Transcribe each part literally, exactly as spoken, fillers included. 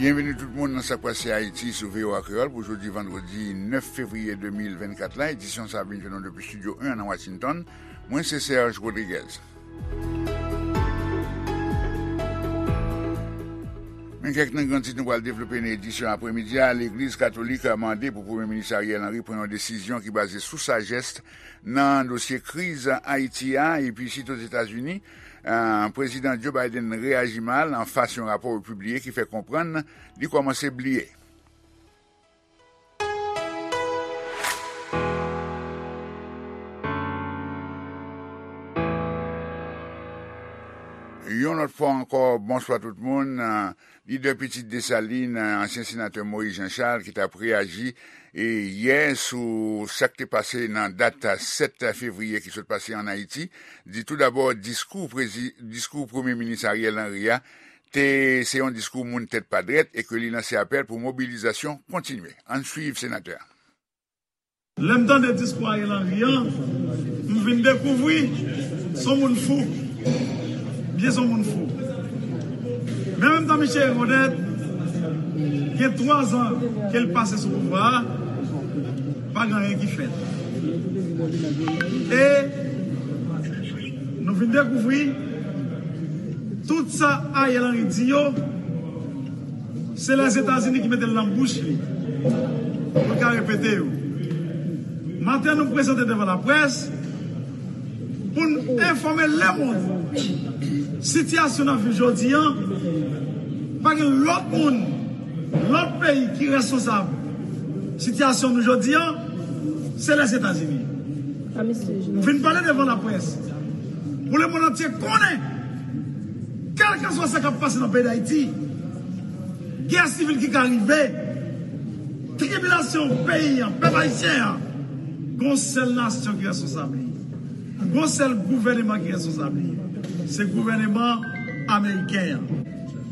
Byenveni tout moun nan Sa k Pase Ayiti sou V O A Kreyòl pou jodi vandredi nèf fevriye de mil vennkat la. Edisyon sa a vin jwenn nou depi Estidyo en nan Washington. Mwen se Serge Rodriguez. Men kèk nan gran tit nou pral devlope nan edisyon apremidi a. Legliz Katolik mande pou Premye Minis Ariel Henry pran yon desizyon ki baze sou sajès nan dosye kriz Ayiti a. Epi isit Ozetazini, eh, Prezidan Joe Biden reyaji mal anfas yon rapò yo pibliye ki fè konprann li kòmanse bliye. Yon lòt fwa ankò, bonswa tout moun. Lidè Pitit Desalin, ansyen senatè Moïse Jean Charles, ki t ap reyaji, e, yè sou sa k te pase nan dat sèt fevriye ki sot pase ann Ayiti, di toudabò diskou prezi-, diskou Premye Minis Ariel Henry a te se yon diskou moun tèt pa drèt e ke li lanse apèl pou mobilizasyon kontinye. Ann swiv senatè a. Lè m tande diskou Ariel Henry an, m vin dekouvri s on moun fou. Byen s on moun fou. Men an menm tan, misye rekonèt, gen twa zan ke l pase sou pouvwa a, pa gen anyen ki fèt. E nou vin dekouvri tout sa Ariel Henry di yo, se Lèzetazini ki mete l nan bouch li pou l ka repete yo. Maten, nou prezante devan laprès pou n enfòme lemonn sitiyasyon n ap viv jodi an. Pa gen lòt moun, lòt peyi ki reskonsab sitiyasyon nou jodi an, se Lèzetazini. Nou vin pale devan laprès pou lemonn antye konnen, kèlkeswa sa k ap pase nan peyi Dayiti, gè sivil ki ka rive, tribilasyon peyi an, pèp ayisyen an, gon sèl nasyon ki reskonsab li. Gon sèl gouvèneman ki reskonsab li. Se gouvèneman ameriken an.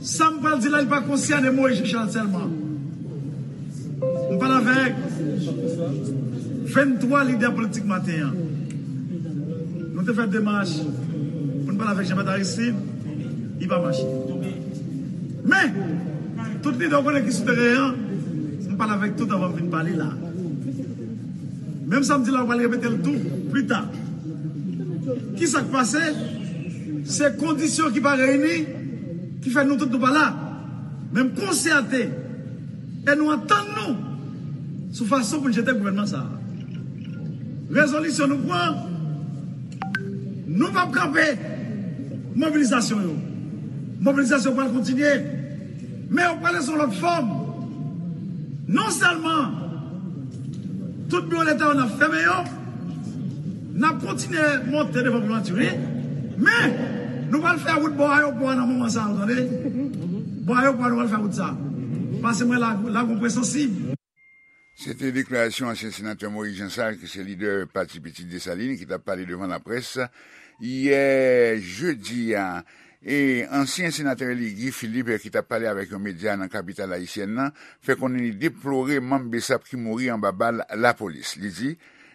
Sa m pral di la, li pa konsène Moïse Jean Charles sèlman. M pale avèk venntwa lidè politik maten an. Nou te fè demach pou n pale avèk Jean Bertrand Aristide, li pa mache. Men, tout lidè w konnen ki sou teren an, m pale avèk tout anvan m vin pale la. Menm sa m di la, w pral repete l tou pita. Kisa k pase? Se kondisyon ki pa reyini ki fè nou tout nou pa la. Men m konsète e nou antann nou sou fason pou n jete gouvènman sa a. Rezolisyon nou pran, nou p ap kanpe mobilizasyon yo. Mobilizasyon pral kontinye, men yo pral sou lòt fòm. Non sèlman tout biwo Leta yo n ap fèmen yo, n ap kontinye monte devan primati, wi, men nou pral fè wout bò ayewopò a nan moman sa a, w tande? Bò ayewopò a, nou pral fè wout sa a. Pase mwen la, la gon pwen sansib. Se te deklarasyon ansyen senatè Moïse Jean Charles, ki se lidè pati Pitit Desalin, ki t ap pale devan laprès yè jedi a. E ansyen senatè eli Guy Philippe, ki t ap pale avèk yon medya nan kapital ayisyèn nan, fè konnen li deplore manm BSAP ki mouri anba bal lapolis. Li di,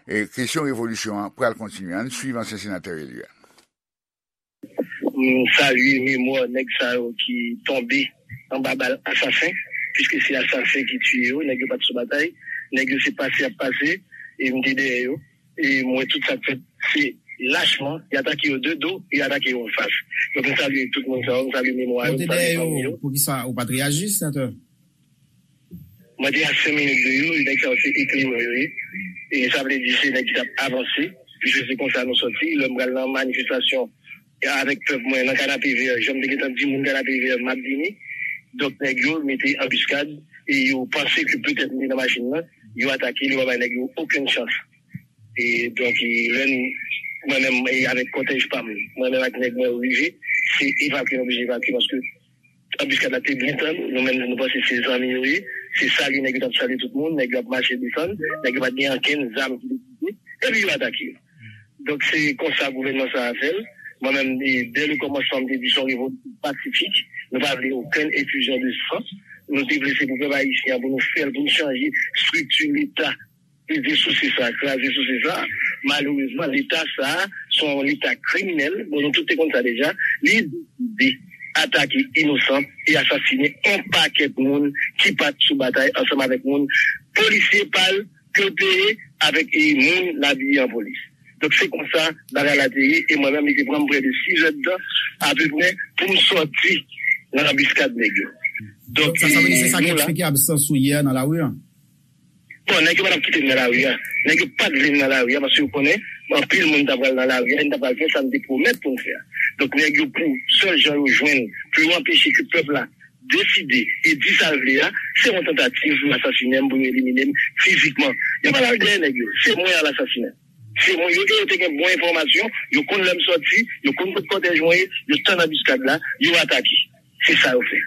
e, kesyon revolisyon an pral kontinye. Ann swiv ansyen senatè eli a. M salye memwa nèg sa yo ki tonbe anba bal asasen, piske se asasen ki tiye yo, nèg yo pa t sou batay, nèg yo se pase y ap pase, e m te dèyè yo, e m wè tout sa k fèt, se lachman, y atake yo de do, y atake yo anfas. Donk, m salye tout moun sa yo, m salye memwa yo, m salye fanmi yo. Poukisa ou pa t reyaji, senatè? Mwen te a senk minit de yo, e nèg sa yo se eklerè yo ye. E sa vle di se nèg ki t ap avanse. Piske se konsa nou sòti. Lè m pral nan manifestasyon, e avèk pèp mwen nan Kanapevè, jan m te gentan di moun Kanapevè, m ap vini. Donk, nèg yo mete anbiskad e yo panse ke petèt m te nan machin nan, yo atake l, yo pa bay nèg yo okenn chans. E donk, e lè n, mwen menm, e avèk kòtèj pa m, mwen menm ak nèg mwen yo rive, se evakye, nou oblije evakye paske anbiskad la te byen tann, nou menm nou panse se zanmi yo ye, se salye nèg yo t ap salye tout moun, nèg yo ap mache desann, nèg yo pa t gen ankenn zam ki te pote, epi yo atake yo. Donk se konsa gouvènman sa a fè l. Mwen menm, e, dè le kòmansman, m te di se yon revolisyon pasifik, nou pa vle okenn efizyon de san, nou te vle se pou pèp ayisyen an, pou nou fè l, pou nou chanje estrikti Leta, peze sou se sa, kraze sou se sa. Malerezman, Leta sa a, se yon Leta kriminèl. Bon, nou tout te konn sa deja. Li deside atake inosan e asasinen yon pakèt moun ki pa t sou batay ansanm avèk moun polisye pa l ke l peye avèk e moun l abiye an polis. Donk se konsa bagay la te ye e mwen menm li te pran m prè de sizèdtan apeprè pou m sòti nan anbiskad nèg yo. Donk sa, sa vle di se sa ki eksplike absans ou yè nan lari a? Bon, nèg yo pa t ap kite m nan lari a. Nèg yo pa t vle m nan lari a paske yo konnen anpil moun ta pral nan lari a e n ta pral fè sa n te pwomèt pou n fè a. Donk nèg yo pou sèl jan yo jwenn pou yo anpeche ke pèp la deside e di sa l vle a, se yon tantativ pou yo asasinen m, pou yo elimine m fizikman. Yo pa t al dèyè nèg yo, se mwen y al asasinen. Se mwen yo e yo te gen bon enfòmasyon, yo konn lè m sòti, yo konn kot kòtèj mwen ye, yo tann anbiskad la, yo atake. Se sa yo fè.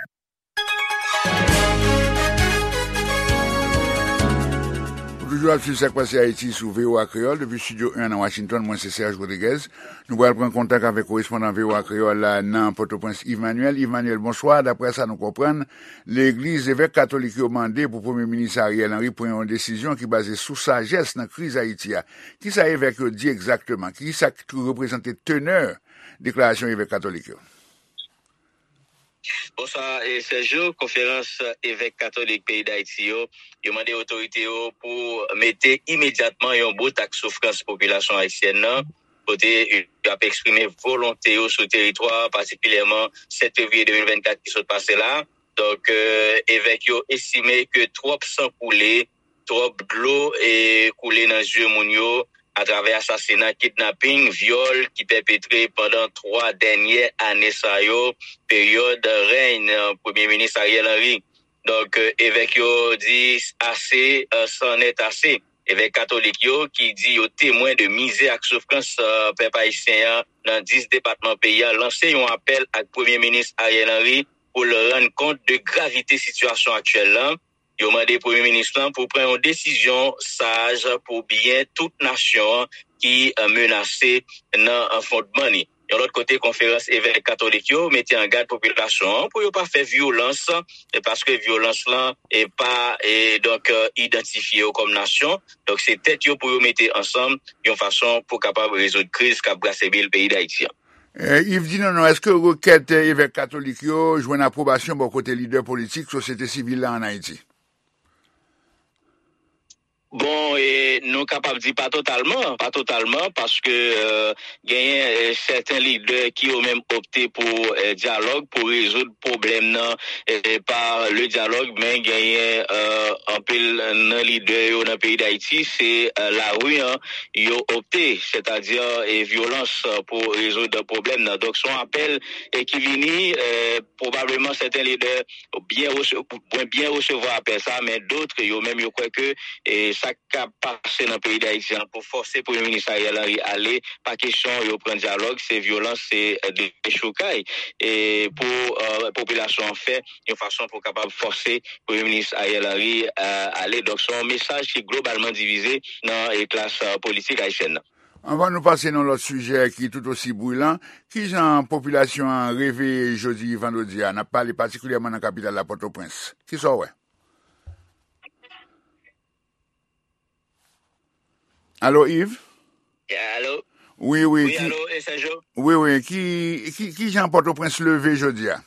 Ou toujou ap swiv Sa k Pase Ayiti sou V O A Kreyòl depi Estidyo en nan Washington. Mwen se Serge Rodriguez. Nou pral pran kontak avèk korespondan V O A Kreyòl la nan Pòtoprens, Yves Manuel. Yves Manuel, bonswa. Daprè sa nou konprann, legliz, evèk katolik yo mande pou Premye Minis Ariel Henry pran yon desizyon ki baze sou sajès nan kriz Ayiti a. Kisa evèk yo di egzakteman? Kisa k reprezante tenè deklarasyon evèk katolik yo? Bonswa Sergio. Konferans Evèk Katolik peyi Dayiti yo, yo mande otorite yo pou mete imedyatman yon bout ak soufrans popilasyon ayisyèn nan, kote yo ap eksprime volonte yo sou teritwa, patikilyèman sèt fevriye de mil vennkat ki sot pase la. Donk, evèk yo estime ke twòp san koule, twòp dlo e koule nan zye moun yo atravè asasina, kidnaping, vyòl ki pèpetre pandan twa dènye ane sa yo, peryòd rèy Premye Minis Ariel Henry. Donk, evèk yo di ase, c'en est assez. Evèk katolik yo ki di yo temwen de mizè ak soufrans pèp ayisyen an nan dis depatman peyi a lanse yon apèl ak Premye Minis Ariel Henry pou l rann kont de gravite sitiyasyon aktyèl lan. Yo mande Premye Minis lan pou pran yon desizyon saj pou byen tout nasyon an ki menase nan fondman li. Yon lòt kote, Konferans Evèk Katolik yo mete an gad popilasyon an pou yo pa fè vyolans, paske vyolans lan e pa e donk idantifye yo kòm nasyon. Donk se tèt yo pou yo mete ansanm yon fason pou kapab rezoud kriz k ap brase bil peyi Dayiti an. Yves, di nou non, èske rekèt evèk katolik yo jwenn apwobasyon bò kote lidè politik sosyete sivil la ann Ayiti? Bon, e, nou kapab di pa totalman, pa totalman, paske e, genyen e, sèten lidè ki yo menm opte pou e, dyalòg, pou rezoud pwoblèm nan e, pa le dyalòg, men genyen e, anpil nan lidè yo nan peyi Dayiti, se e, lari an yo opte, sètadi e, vyolans pou rezoud pwoblèm nan. Donk, se yon apèl e, ki vini e, pwobableman sèten lidè byen rese- mwen byen resevwa apèl sa, men dòt yo menm yo kwè ke e, sa k ap pase nan peyi Dayiti an pou fòse Premye Minis Ariel Henry ale, pa kesyon yo pran dyalòg, se vyolans, se e, dechoukay e, pou e, popilasyon an fè yon fason pou kapab fòse Premye Minis Ariel Henry e, ale. Donk, se yon mesaj ki globalman divize nan e, klas e, politik ayisyèn nan. Anvan nou pase nan lòt sijè ki tout osi brilan, kijan popilasyon an reveye jodi vandredi a? N ap pale patikilyèman nan kapital la, Pòtoprens. Kisa w wè? Alo, Yves? Alo? Wi, wi. Wi, alo, e Sèjo? Wi, wi. Ki, ki, kijan Pòtoprens leve jodi a?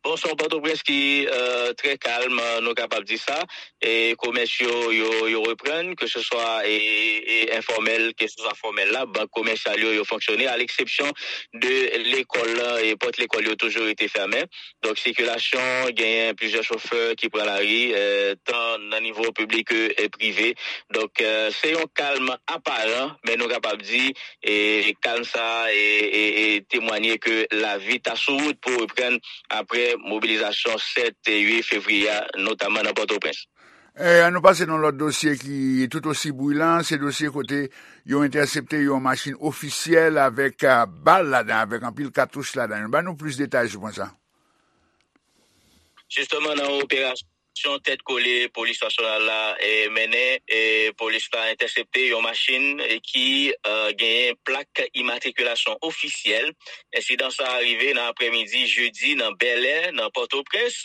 Bon, se yon Pòtoprens ki e, trè kalm, nou kapab di sa. E komès yo, yo, yo reprann, keseswa e, e enfòmèl, keseswa fòmèl la, bank komèsyal yo, yo fonksyone, a leksepsyon de lekòl lan, e pòt lekòl yo toujou rete fèmen. Donk, sikilasyon, genyen plizyè chofè ki pran lari, e, tan nan nivo piblik ke e, prive. Donk, e, se yon kalm aparan, men nou kapab di e, kalm sa a e, e, e temwanye ke lavi ta sou wout pou reprann apre mobilizasyon sèt e uit fevriye a, notaman nan Pòtoprens. E, ann nou pase nan lòt dosye ki tout osi brilan, se dosye kote yo entèsepte yon machin ofisyèl avèk e, bal ladan, avèk anpil katouch ladan. Ban nou plis detay sou pwen sa. Jisteman, nan operasyon Operasyon tèt kole polis nasyonal la, e, mennen, e, polis la entèsepte yon machin, e, ki, e, genyen plak imatrikilasyon ofisyèl. Ensidan sa a rive nan aprèmidi jedi nan Bèlè, nan Pòtoprens.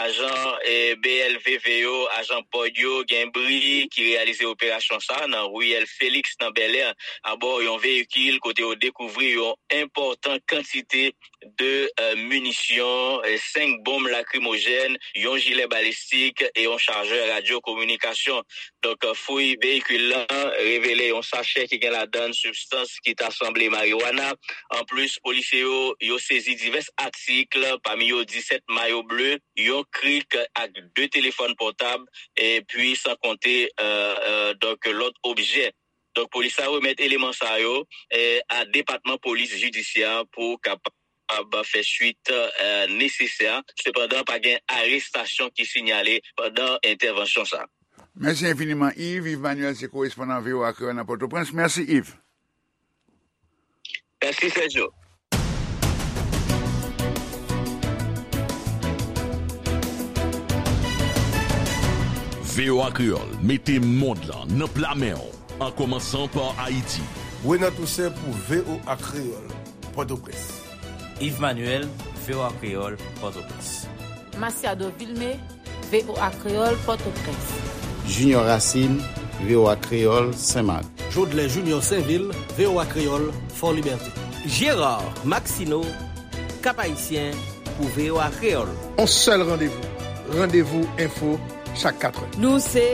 Ajan, e, B L V V yo, ajan bòd yo, gen bri ki reyalize operasyon sa a nan riyèl Felix nan Bèlè, abò yon veyikil kote yo dekouvri yon enpòtan kantite de, e, minisyon, e, senk bonm lakrimojèn, yon jilè balistik e yon chajè radyo kominikasyon. Donk, e, fouy veyikil lan revele yon sachè ki gen ladan l sibstans ki ta sanble mariwana. Anplis, polisye yo, yo sezi divès atik, pami yo disèt mayo ble, yon krik ak de telefòn pòtab, epi san konte, e, e, donk, lòt objè. Donk, polis la remèt eleman sa yo, e, a Depatman Polis Jidisyè pou kapab fè swit, e, nesesè. Sepandan, pa gen arestasyon ki sinyale pandan entèvansyon sa. Mèsi enfiniman, Yves. Yves Manuel se korespondan V O A Kreyòl nan Pòtoprens. Mèsi, Yves. Mèsi, Sergio. V O A Kreyòl mete mond lan nan pla men w, an kòmansan pa Ayiti. Renan Toussaint pou V O A Kreyòl, Pòtoprens. Yves Manuel, V O A Kreyòl, Pòtoprens. Masiado Vilmé, V O A Kreyòl, Pòtoprens. Junior Racine, V O A Kreyòl, Senmak. Jodlè Junior Sainvil, V O A Kreyòl, Fòlibète. Gérard Maxineau, Cap-Haïtien, pou V O A Kreyòl. On sèl randevou, Randevou Enfo, chak katrè. Nou se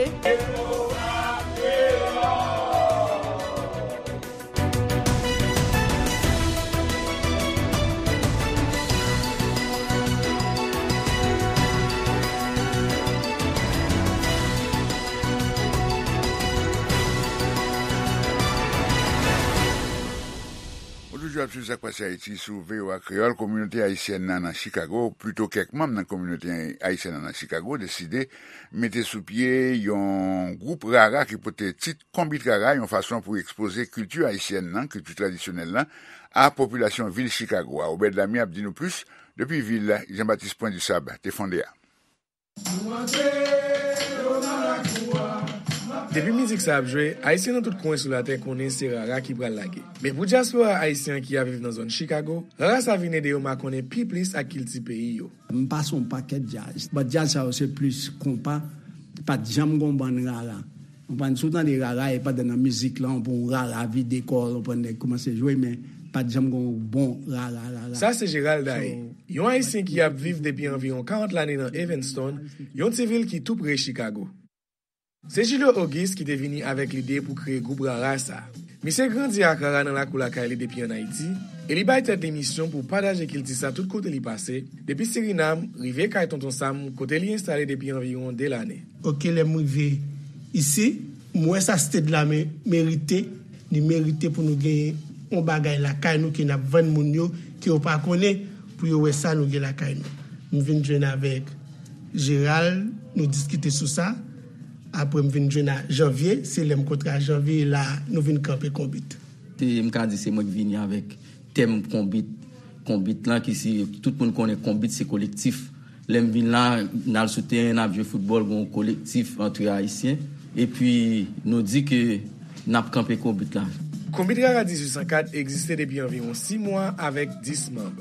Ou toujou ap swiv Sa k Pase Ayiti sou V O A Kreyòl. Kominote ayisyèn nan nan Chicago, plito kèk manm nan kominote ayisyèn nan nan Chicago, deside mete sou pye yon gwoup rara ki pote tit Konbit Rara, yon fason pou ekspoze kilti ayisyèn nan, kilti tradisyonèl la, a popilasyon vil Chicago a. Obed Lamy ap di nou plis depi vil Jean-Baptiste Point du Sable te fonde a. Depi mizik sa ap jwe, Ayisyen nan tout kwen sou latè konnen se rara ki pral lage. Men pou dyaspora ayisyen ki ap viv nan zòn Chicago, rara sa vin ede yo makonnen pi plis ak kilti peyi yo. M pase yon pakèt djaz. But djaz sa yo se plis konpa. Pa t janm gon bann rara. Ou konprann? Si w tande rara, e pandan nan mizik lan, pou yon rara vide kò l, ou konprann, nèg kòmanse jwe, men pa t janm gon bon rara, rara. Sa se Gérald Daé, yon Ayisyen ki ap viv depi anviwon karant lane nan Evanston, yon ti vil ki tou pre Chicago. Se Julio Auguste ki te vini avèk lide pou kreye gwoup rara sa. Misye grandi ak rara nan lakou lakay li depi ann Ayiti, e li bay tèt li misyon pou pataje kilti sa tout kote li pase, depi Sirinam rive kay Tonton Sam, kote li enstale depi anviwon de lane. Oke, lè m rive isi, m wè sa state la me-, merite, li merite pou nou genyen yon bagay lakay nou ke n ap vann moun yo, ke yo pa konnen, pou yo wè sa nou gen lakay nou. M vin jwenn avèk Gérald, nou diskite sou sa. Apre m vin jwenn a Janvier, se lè m kontre a Janvier, e la nou vin kanpe Konbit. Se, m ka di se mwen ki vini avèk tèm Konbit. Konbit lan ki se, tout moun konnen Konbit se kolektif. Lè m vin la, n al sou teren, n ap jwe foutbòl, gon kolektif antre Ayisyen. Epi nou di ke n ap kanpe Konbit la. Konbit Rara dizuit san kat egziste depi anviwon sis mwa avèk dis manm.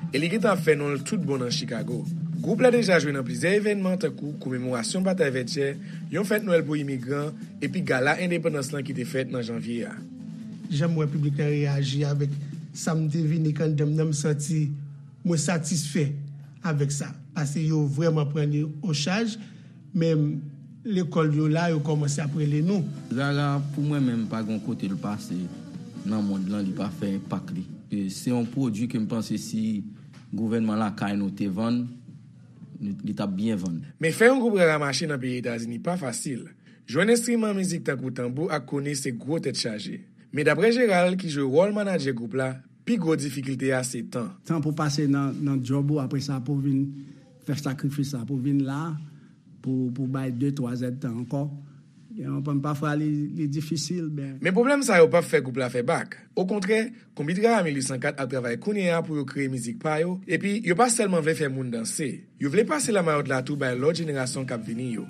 E li gentan ap fè non l tout bon nan Chicago. Gwoup la deja jwe nan plizyè evènman tankou komemorasyon Batay Vètyè, yon fèt Nwèl pou imigran, epi gala endepandans lan ki te fèt nan janvye a. Jan m wè piblik la reyaji avèk sa m te vini k anndan m nan, m santi mwen satisfè avèk sa. Paske yo vrèman pran li o chaj, menm lekòl yo la, yo kòmanse ap rele nou. Rara, pou mwen menm, pa gen kote l pase nan mond lan, li pa fè enpak li. E se yon pwodui ke m panse si gouvènman lakay nou te vann, li, li t ap byen vann. Men fè yon gwoup rara mache nan peyi Etazini pa fasil. Jwenn enstriman mizik tankou tanbou ak koni se gwo tèt chaje. Men daprè Gérald, ki jwe wòl manadjè gwoup la, pi gwo difikilte a se tan. Tan pou pase nan, nan djòb ou, apre sa pou vin fè sakrifis la, pou vin la, pou, pou bay de, twa zèdtan ankò. Yon pam pafwa li, li difisil, ben. Men pwoblèm sa yo p ap fè gwoup la fè bak. Okontrè, Konbit Rara mil uit san kat ap travay kounye a pou yo kreye mizik pa yo, epi yo pa sèlman vle fè moun danse, yo vle pase lamayòt la tou bay lòt jenerasyon k ap vini yo.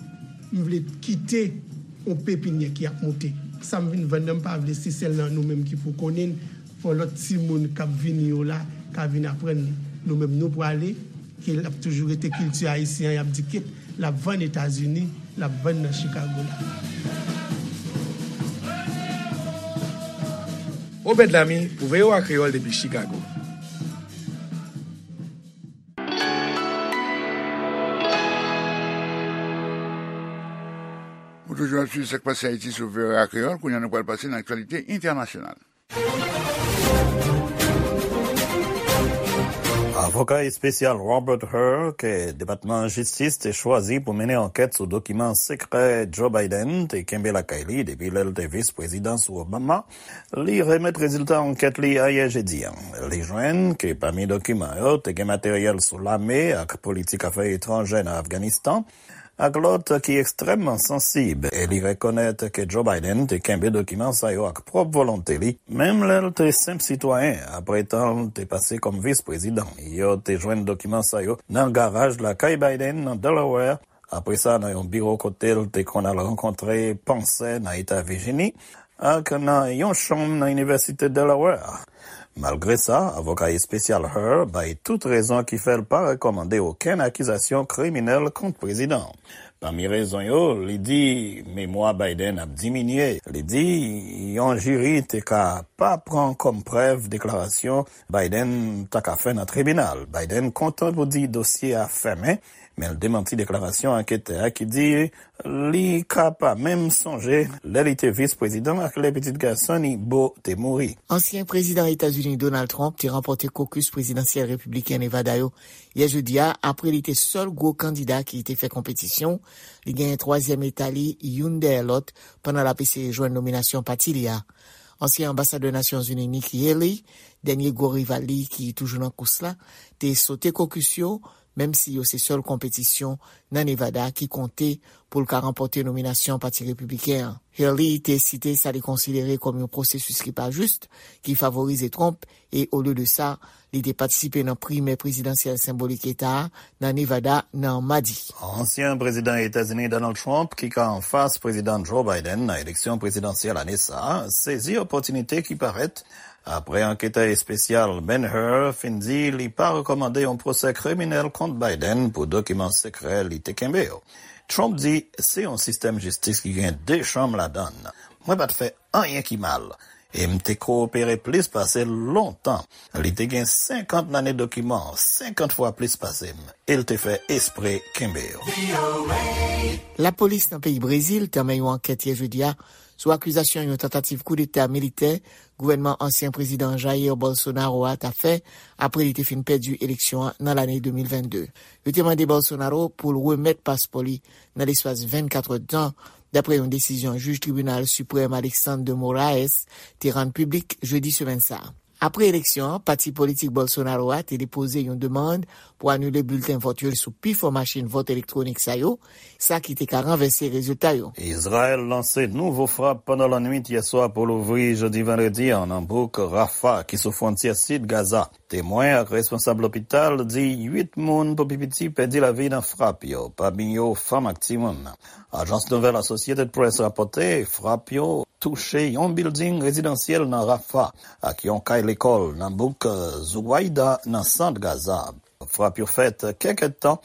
M vle kite yon pepinyè ki ap moute. Sa m vin vann nan, m pa vle se sèl nan nou menm ki pou konnen l. Fò lòt timoun k ap vini yo la ka vin aprann li. Nou menm nou prale, ke l ap toujou rete kilti ayisyen an, y ap di kit l ap vann Etazini, l ap vann nan Chicago la. Obed Lamy pou V O A Kreyòl depi Chicago. Ou toujou ap swiv Sa k Pase Ayiti sou V O A Kreyòl. Kounye a, nou pral pase nan aktyalite entènasyonal. Avoka espesyal Robert Hur, ke Depatman Jistis te chwazi pou mennen ankèt sou dokiman sekrè Joe Biden te kenbe lakay li depi lè l te vis prezidan sou Obama, li remèt rezilta ankèt li ayè jedi a. Li jwenn ke pami dokiman yo te gen materyèl sou lame ak politik afè etranjè nan Afganistan, ak lòt ki ekstrèmman sansib, e li rekonèt ke Joe Biden te kenbe dokiman sa yo ak pwòp volonte li, menm lè l te senp sitwayen, apre tan l te pase kòm vis prezidan. Yo te jwenn dokiman sa yo nan garaj lakay Biden nan Delaware, apre sa nan yon biwo kote l te konn al rankontre pansè nan eta Vijini, ak nan yon chanm nan Inivèsite Delaware. Malgre sa, avoka espesyal Hur bay tout rezon ki fè l pa rekòmande okenn akizasyon kriminèl kont prezidan an. Pami rezon yo, li di memwa Biden ap diminye. Li di yon jiri te ka pa pran kòm prèv deklarasyon Biden ta ka fè nan tribinal. Biden kontan pou di dosye a fèmen, men l demanti deklarasyon anketè a ki di li ka pa menm sonje lè li te vis prezidan ak lè pitit gason li, Beau, te mouri. Ansyen prezidan Etazini Donald Trump te ranpòte kokis prezidansyèl repibliken Nevada yo yè jedi a, apre li te sèl gwo kandida ki te fè konpetisyon. Li genyen twazyèm eta li, youn dèyè lòt, pandan l ap eseye jwenn nominasyon pati li a. Ansyen anbasadè Nasyonzini Nikki Haley, dènye gwo rival li ki toujou nan kous la, te sote kokis yo, menm si yo se sèl konpetisyon nan Nevada ki konte pou l ka ranpòte nominasyon Pati Repibliken an. Haley te site sa li konsidere kòm yon pwosesis ki pa jis, ki favorize Trump, e olye de sa, li te patisipe nan primè prezidansyèl senbolik eta a nan Nevada nan madi. Ansyen prezidan Etazini Donald Trump, ki ka anfas prezidan Joe Biden nan eleksyon prezidansyèl ane sa a, sezi opòtinite ki parèt apre anketè espesyal Ben Hur fin di li pa rekòmande yon pwosè kriminèl kont Biden pou dokiman sekrè li te kenbe yo. Trump di se yon sistèm jistis ki gen de chanm ladan l. Mwen pa t fè anyen ki mal, e m te kowopere plis pase l lontan. Li te gen senkant lane dokiman, senkant fwa plis pase m, e l te fè espre kenbe yo. Lapolis nan peyi Brezil tanmen yon ankèt yè jedi a sou akizasyon yon tantativ koudeta militè gouvènman ansyen prezidan Jair Bolsonaro a ta fè apre li te fin pèdi eleksyon an nan lane de mil vennde. Yo te mande Bolsonaro pou l remèt paspò li nan lespas vennkat èdtan, dapre yon desizyon jij Tribinal Siprèm Alexandre de Moraes te rann piblik jedi semèn sa a. Apre eleksyon an, pati politik Bolsonaro a te depoze yon demann pou anile bilten vòt yo sou pifò machin vòt elektwonik sa yo, sa ki te ka ranvèse rezilta yo. Izrayèl lanse nouvo frap pandan lannwit yè swa pou louvri jodi vandredi an nan bouk Rafah ki sou fwontyè sid Gaza. Temwen ak responsab lopital di uit moun pou pi piti pèdi lavi nan frap yo, pami yo fanm ak timoun. Ajans nouvèl Associated Press rapòte frap yo touche yon bilding rezidansyèl nan Rafah ak yon kay lekòl nan bouk Zuwaida nan sant Gaza. Frap yo fèt kèk èdtan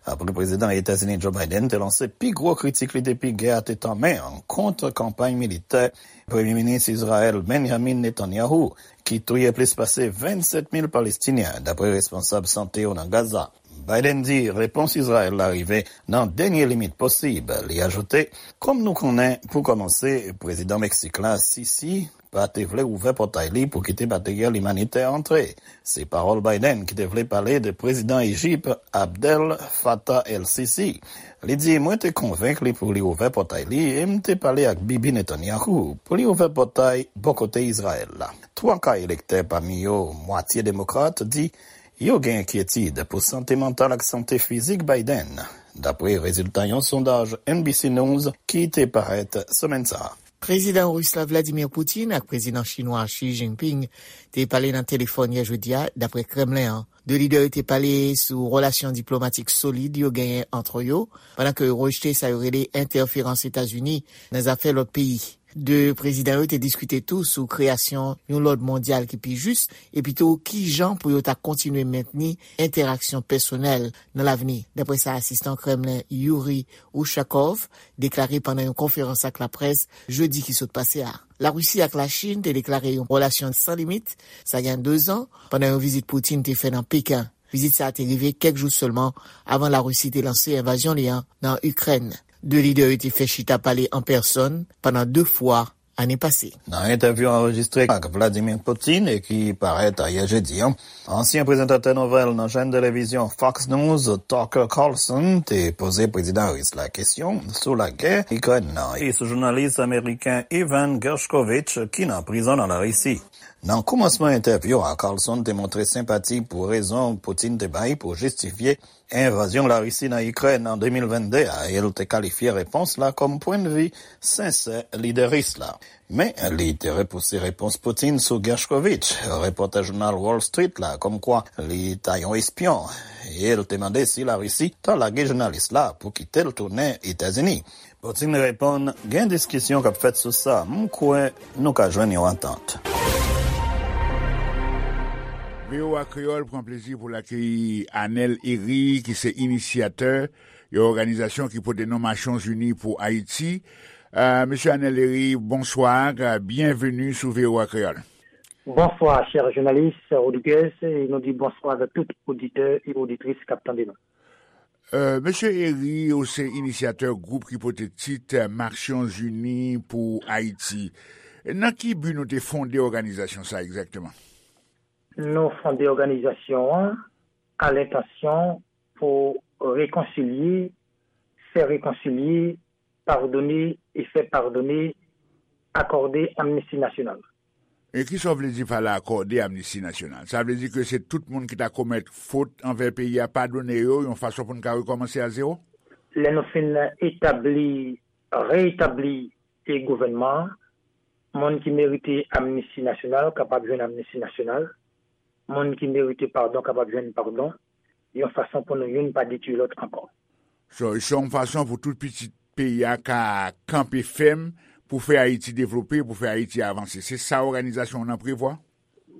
apre prezidan Etazini Joe Biden te lanse pi gwo kritik li depi gè a te tanmen an kont kanpay militè Premye Minis Izrayèl Benjamin Netanyahu, ki touye plis pase vennsèt mil Palestinyen, dapre responsab sante yo nan Gaza. Biden di repons Izrayèl la rive nan dènye limit posib. Li ajoute, kòm nou konnen, pou kòmanse, prezidan Meksik la, Sisi, pa te vle ouvè pòtay li pou kite materyèl imanitè antre. Se pawòl Biden ki te vle pale de prezidan Ejip Abdel Fattah el-Sisi. Li di, mwen te konvenk li pou li ouvè pòtay li e m te pale ak Bibi Netanyahu pou li ouvè pòtay bò kote Izrayèl la. Twa ka elektè, pami yo mwatye demokrat, di Yo gen enkyetid pou sante mantal ak sante fizik Biden, dapre rezilta yon sondaj N B C News ki te parèt semèn sa a. Prezidan ris la Vladimir Putin ak prezidan chinwa Xi Jinping te pale nan telefòn yè jedi a, dapre Kremlen an. De lidè yo te pale sou relasyon diplomatik solid yo genyen ant yo, pandan ke yo rejte sa yo rele entèferans Etazini nan zafè lòt peyi. De prezidan yo te diskite tou sou kreyasyon yon lòd mondyal ki pi jis, epi tou kijan pou yo ta kontinye mentni entèraksyon pèsonèl nan lavni, dapre sa asistan Kremlen Yuri Ushakov deklare pandan yon konferans ak laprès jedi ki sot pase a. Larisi ak Lachin te deklare yon relasyon san limit, sa gen de zan, pandan yon vizit Putin te fè nan Peken. Vizit sa a te rive kèk jou sèlman avan Larisi te lanse envazyon li an nan Ikrèn. De lidè yo te fè chita pale an pèsòn pandan de fwa ane pase. Nan entèvyou anrejistre ak Vladimir Putin e ki parèt ayè jedi an, ansyen prezantatè nouvèl nan chèn televizyon Fox News, Tucker Carlson, te poze prezidan ris la kesyon sou lagè Ikrèn nan e sou jounalis ameriken Evan Gershkovich ki nan prizon nan Larisi. Nan kòmansman entèvyou a, Carlson te montre senpati pou rezon Putin te bay pou jistifye envazyon Larisi nan Ikrèn an de mil vennde a, e l te kalifye repons la kòm pwennvi sensè lidè ris la. Men, li te repouse repons Putin sou Gershkovich, repòtè jounal Wall Street la, kòmkwa li ta yon espyon, e l te mande si Larisi ta lage jounalis la pou kite l tounen Etazini. Putin reponn, gen diskisyon k ap fèt sou sa, m kwè nou ka jwenn yon antant. V O A Kreyòl pran plezi pou l akeyi Anel Herry, ki se inisyatè yon òganizasyon ki pote non Nasyonzini pou Ayiti. Euh, Mesye Anel Herry, bonswa, byenveni sou V O A Kreyòl. Bonswa, chè jounalis Rodriguez, e nou di bonswa avèk tout oditè e oditris k ap tande nou. Euh, Mesye Herry, ou se inisyatè gwoup ki pote tit Nasyonzini pou Ayiti. Nan ki bi nou te fonde òganizasyon sa egzakteman? Nou fonde òganizasyon an a lentansyon pou rekonsilye, fè rekonsilye, padone e fè padone, akòde amnisti nasyonal. E kisa w vle di pa la akòde amnisti nasyonal? Sa vle di ke se tout moun ki ta komèt fot anvè peyi a, padone yo yon fason pou n ka rekòmanse a zewo? Lè nou fin etabli, reetabli e gouvènman an, moun ki merite amnisti nasyonal kapab jwenn amnisti nasyonal, moun ki merite padon kapab jwenn padon, yon fason pou nou youn pa detwi lòt ankò. So, se yon fason pou tout pitit peyi a ka kanpe fèm pou fè Ayiti devlope, pou fè Ayiti avanse. Se sa òganizasyon w nan prevwa?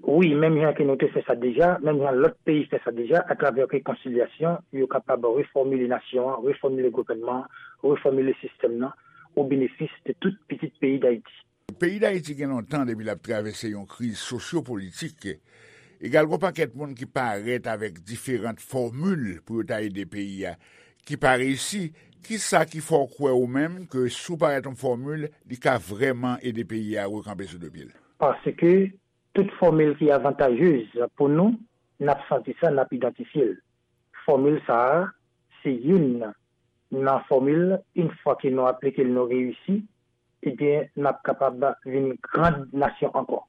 Wi, menm jan ke nou te fè sa deja, menm jan lòt peyi fè sa deja, atravè rekonsilyasyon, yo kapab refòmile nasyon an, refòmile gouvènman an, refòmile sistèm nan, o benefis de tout pitit peyi Dayiti. Peyi Dayiti gen lontan depi l ap travèse yon kriz sosyopolitik. Egal, gen yon pakèt moun ki parèt avèk diferan fòmil pou yo ta ede peyi a, ki pa reyisi. Kisa ki fè w kwè ou menm ke si w parèt yon fòmil, li ka vrèman ede peyi a rekanpe sou de pye l? Paske tout fòmil ki avantajez pou nou, n ap santi sa, n ap idantifye l. Fòmil sa a, se youn nan fòmil, yon fwa ke nou aplike l, nou reyisi, ebyen, n ap kapab vin gran nasyon ankò.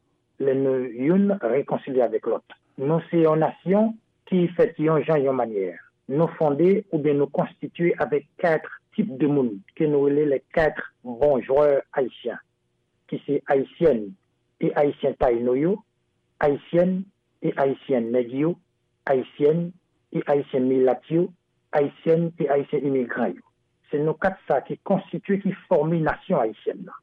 Lè nou youn rekonsilye avèk lòt. Nou se yon nasyon ki fèt yon jan, yon manyè. Nou fonde oubyen nou konstitye avèk kat tip de moun ke nou rele les quatre bons joueurs haïtiens, ki se Ayisyèn e Ayisyen Tayino yo, Ayisyèn e Ayisyen Nèg yo, Ayisyèn e Ayisyen Milat yo, Ayisyèn e Ayisyen imigran yo. Se nou kat sa ki konstitye, ki fòme nasyon ayisyèn nan.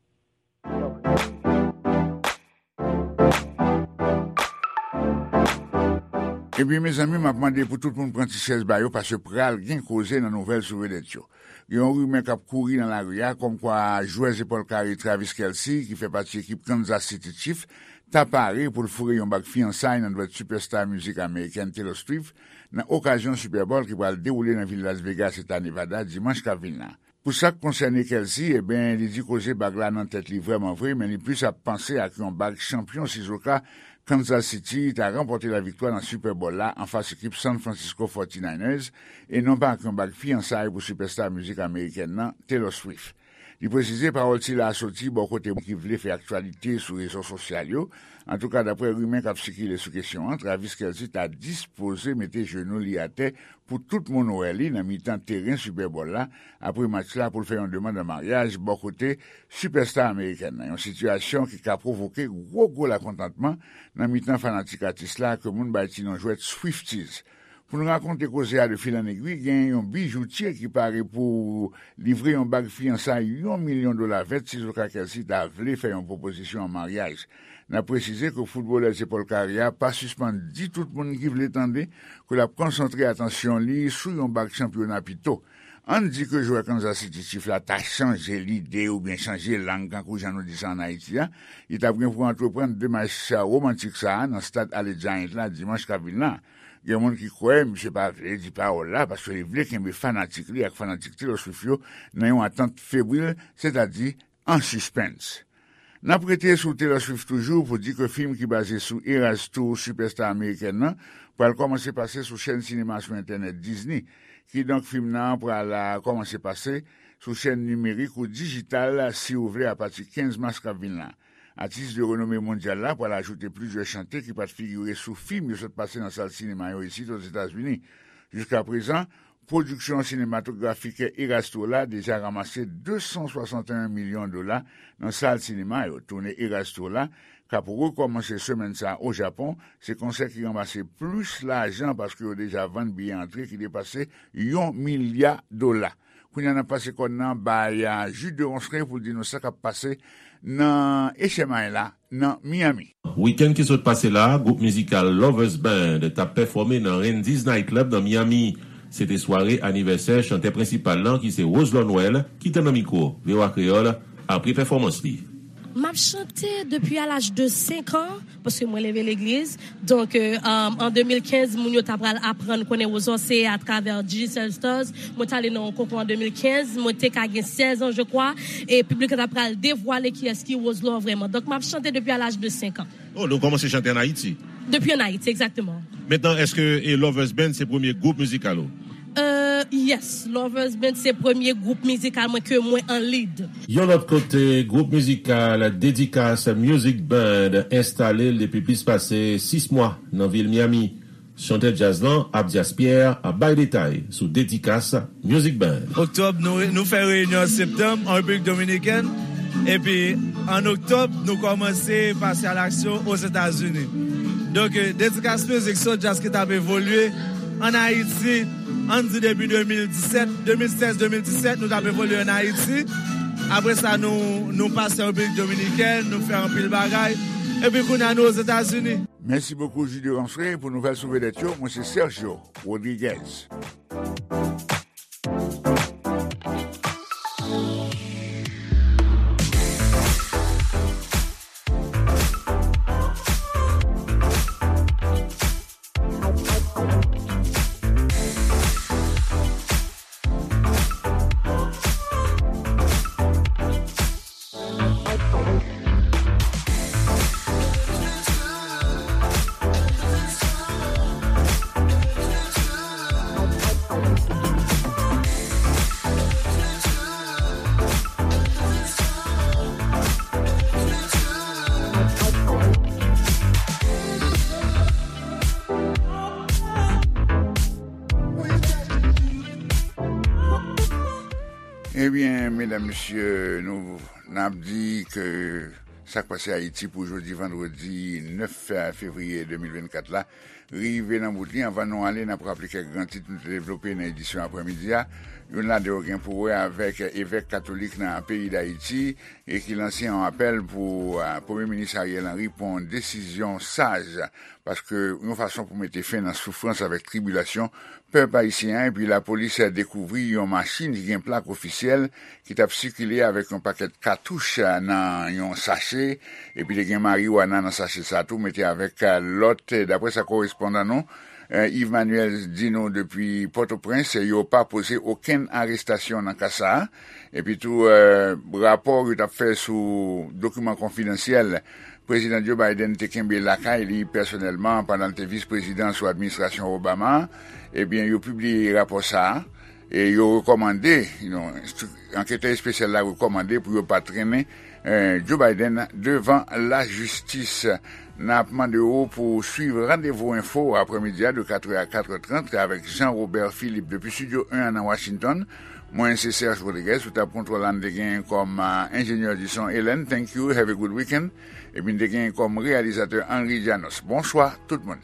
Ebyen, mezanmi, m ap mande pou tout moun pran ti chèz ba yo, paske pral gen koze nan nouvèl sou vedèt yo. Gen yon rimè k ap kouri nan lari a, kòmkwa jwè zepòl kare Travis Kelce, ki fè pati ekip Kansas City Chiefs, ta pare pou l foure yon bag fiyansay nan dwèt sipèsta mizik amerikèn Taylor Swift nan okazyon Super Bowl ki pral dewoule nan vil Las Vegas, eta Nevada, dimanch k ap vin la. Pou sa k konsène Kelce, ebyen, li di koze bag la nan tèt li vrèman vre, men li plis ap panse ak yon bag chanpyon sizoka Kansas City ta ranpòte laviktwa nan Super Bowl la anfas ekip San Francisco forty-niners, e non pa ak yon bag fiyansay pou sipèsta mizik amerikèn nan, Taylor Swift. Li presize pawòl sila a soti bò kote moun ki vle fè aktyalite sou rezo sosyal yo. Antouka, daprè rimè k ap sikile sou kesyon an, Travis Kelce ta dispoze mete jenou li atè pou tout moun wè li nan mitan teren Super Bowl la apre match la pou l fè yon demann an maryaj bò kote sipèsta amerikèn nan, yon sitiyasyon ki ka pwovoke gwo gwo lakontantman nan mitan fanatik atis la ke moun bay ti non jwèt Swifties. Pou n rakonte koze a de fil an egwi, gen yon bijoutye ki pare pou livre yon bag fiyansay yon milyon dola vèt sizoka Kelce ta vle fè yon pwopozisyon an maryaj. N ap presize ke foutbolè zepòl kare a pa sispann di tout moun ki vle tande ke l ap konsantre atansyon li sou yon bag chanpyona pito. Ann di ke jwè Kansas City Chiefs la ta chanje lide oubyen chanje lang, kankou jan nou di sa ann Ayiti a, li t ap gen pou antreprann demach womantik sa a nan stad Allegiant la dimanch k ap vin la. Gen moun ki kwè misye pa vle di pawòl la paske li vle kenbe fanatik li ak fanatik Taylor Swift yo nan yon atant febril, sètadi an sispens. N ap rete sou Taylor Swift toujou pou di ke fim ki baze sou Eras Tour, sipèsta amerikèn nan, pral kòmanse pase sou chèn sinema sou entènèt Disney. Kidonk, fim nan pral, a, kòmanse pase sou chèn nimerik ou dijital, si w vle, apati kenz mas k ap vin la. Atis de renome mondyal la pral ajoute plizyè chante ki pa t figire sou fim yo sot pase nan sal sinema yo isit Ozetazini. Jiskaprezan, pwodiksyon sinematografik Eras Tour la deja ranmase de san swasanteyen milyon dola nan sal sinema yo. Toune Eras Tour la, k ap rekòmanse semèn sa a o Japon, se konsè ki ranmase plis lajan paske yo deja vann biyè antre ki depase yon milya dola. Kounye a, n ap pase kòn nan bay, a, Jude Ronceray pou l di nou sa k ap pase nan H M I la, nan Miami. Wikenn ki sot pase la a, gwoup mizikal Lovers Band t ap pèfòme nan Randy's Night Club nan Miami. Se te sware anivèsè chantè prensipal lan, ki se Roselot Noël, ki te nan mikwo V O A Kreyòl apre pèfòmans li. M ap chante depi a laj de senk an, paske mwen leve legliz. Donk, euh, um, an de mil kenz, moun yo ta pral aprann konnen Roselot se atravè Digicel Stars. Mwen t ale nan yon konkou an de mil kenz, mwen te ka gen sèz an, je crois, e piblik la ta pral devwale kiyès ki Roselot vrèman. Donk, m ap chante depi a laj de senk an. Oh, donk ou kòmanse chante ann Ayiti? Depi ann Ayiti, egzakteman. Mentnan, èske, e, Lovers Band se premye gwoup mizikal ou? Euh, yes, Lovers Band se premye gwoup mizikal mwen ke mwen an lead. Yon lòt kote, gwoup mizikal Dedikas Music Band enstale l depi plis pase sis mwa nan vil Miami. Chantè djaz lan, Abdias Pierre, ap bay detay sou Dedikas Music Band. Oktòb, nou, nou fè reyinyon an septanm an Repiblik Dominikèn. Epi, an oktòb, nou kòmanse pase a laksyon Ozetazini. Donk, eh, Dedikas Music se yon djaz ki t ap evolye ann Ayiti, ann di depi de mil disèt, de mil sèz, de mil disèt, nou t ap evolye ann Ayiti. Apre sa, nou, nou pase an Repiblik Dominikèn, nou fè anpil bagay. Epi kounye a, nou Ozetazini. Mèsi bokou, Jude Ronceray, pou nouvèl sou vedèt yo. Mwen se Sergio Rodriguez. Ebyen, medam, mesye, nou, n ap di ke sa k pase Ayiti pou jodi vandredi nèf fevriye de mil vennkat la rive nan bout li. Anvan nou ale, n ap raple kèk gran tit nou te devlope nan edisyon aprèmidi a. Youn ladan yo gen pou wè avèk evèk katolik nan peyi Dayiti e ki lanse yon apèl pou, a, Premye Minis Ariel Henry pran yon desizyon saj, paske yon fason pou mete fen nan soufrans avèk tribilasyon pèp ayisyen an. Epi lapolis dekouvri yon machin ki gen plak ofisyèl ki t ap sikile avèk yon pakèt katouch, a, nan yon sache, epi te gen mariwana nan sache sa tou, mete avèk, a, lòt, daprè sa korespondan nou, eh, Yves Manuel di nou depi Pòtoprens, yo pa poze okenn arestasyon nan ka sa a. Epi tou, eh, rapò yo t ap fè sou dokiman konfidansyèl Prezidan Joe Biden te kenbe lakay li pèsonèlman pandan l te vis prezidan sou administrasyon Obama a, ebyen, yo pibliye rapò sa a. E yo rekòmande, you know, anketè espesyal la rekòmande pou yo pa trennen eh, Joe Biden devan lajistis. N ap mande w pou w swiv Randevou Enfo aprèmidi a de katrè a katrè trant avèk Jean Robert Philippe depi Studio en an nan Washington. Mwen se Serge Rodriguez, sou tab kontwòl la n te gen kòm ah, enjenyè di son Hélène, thank you, have a good weekend. Epi n te gen kòm reyalizatè Henry Janos. Bonswa tout moun.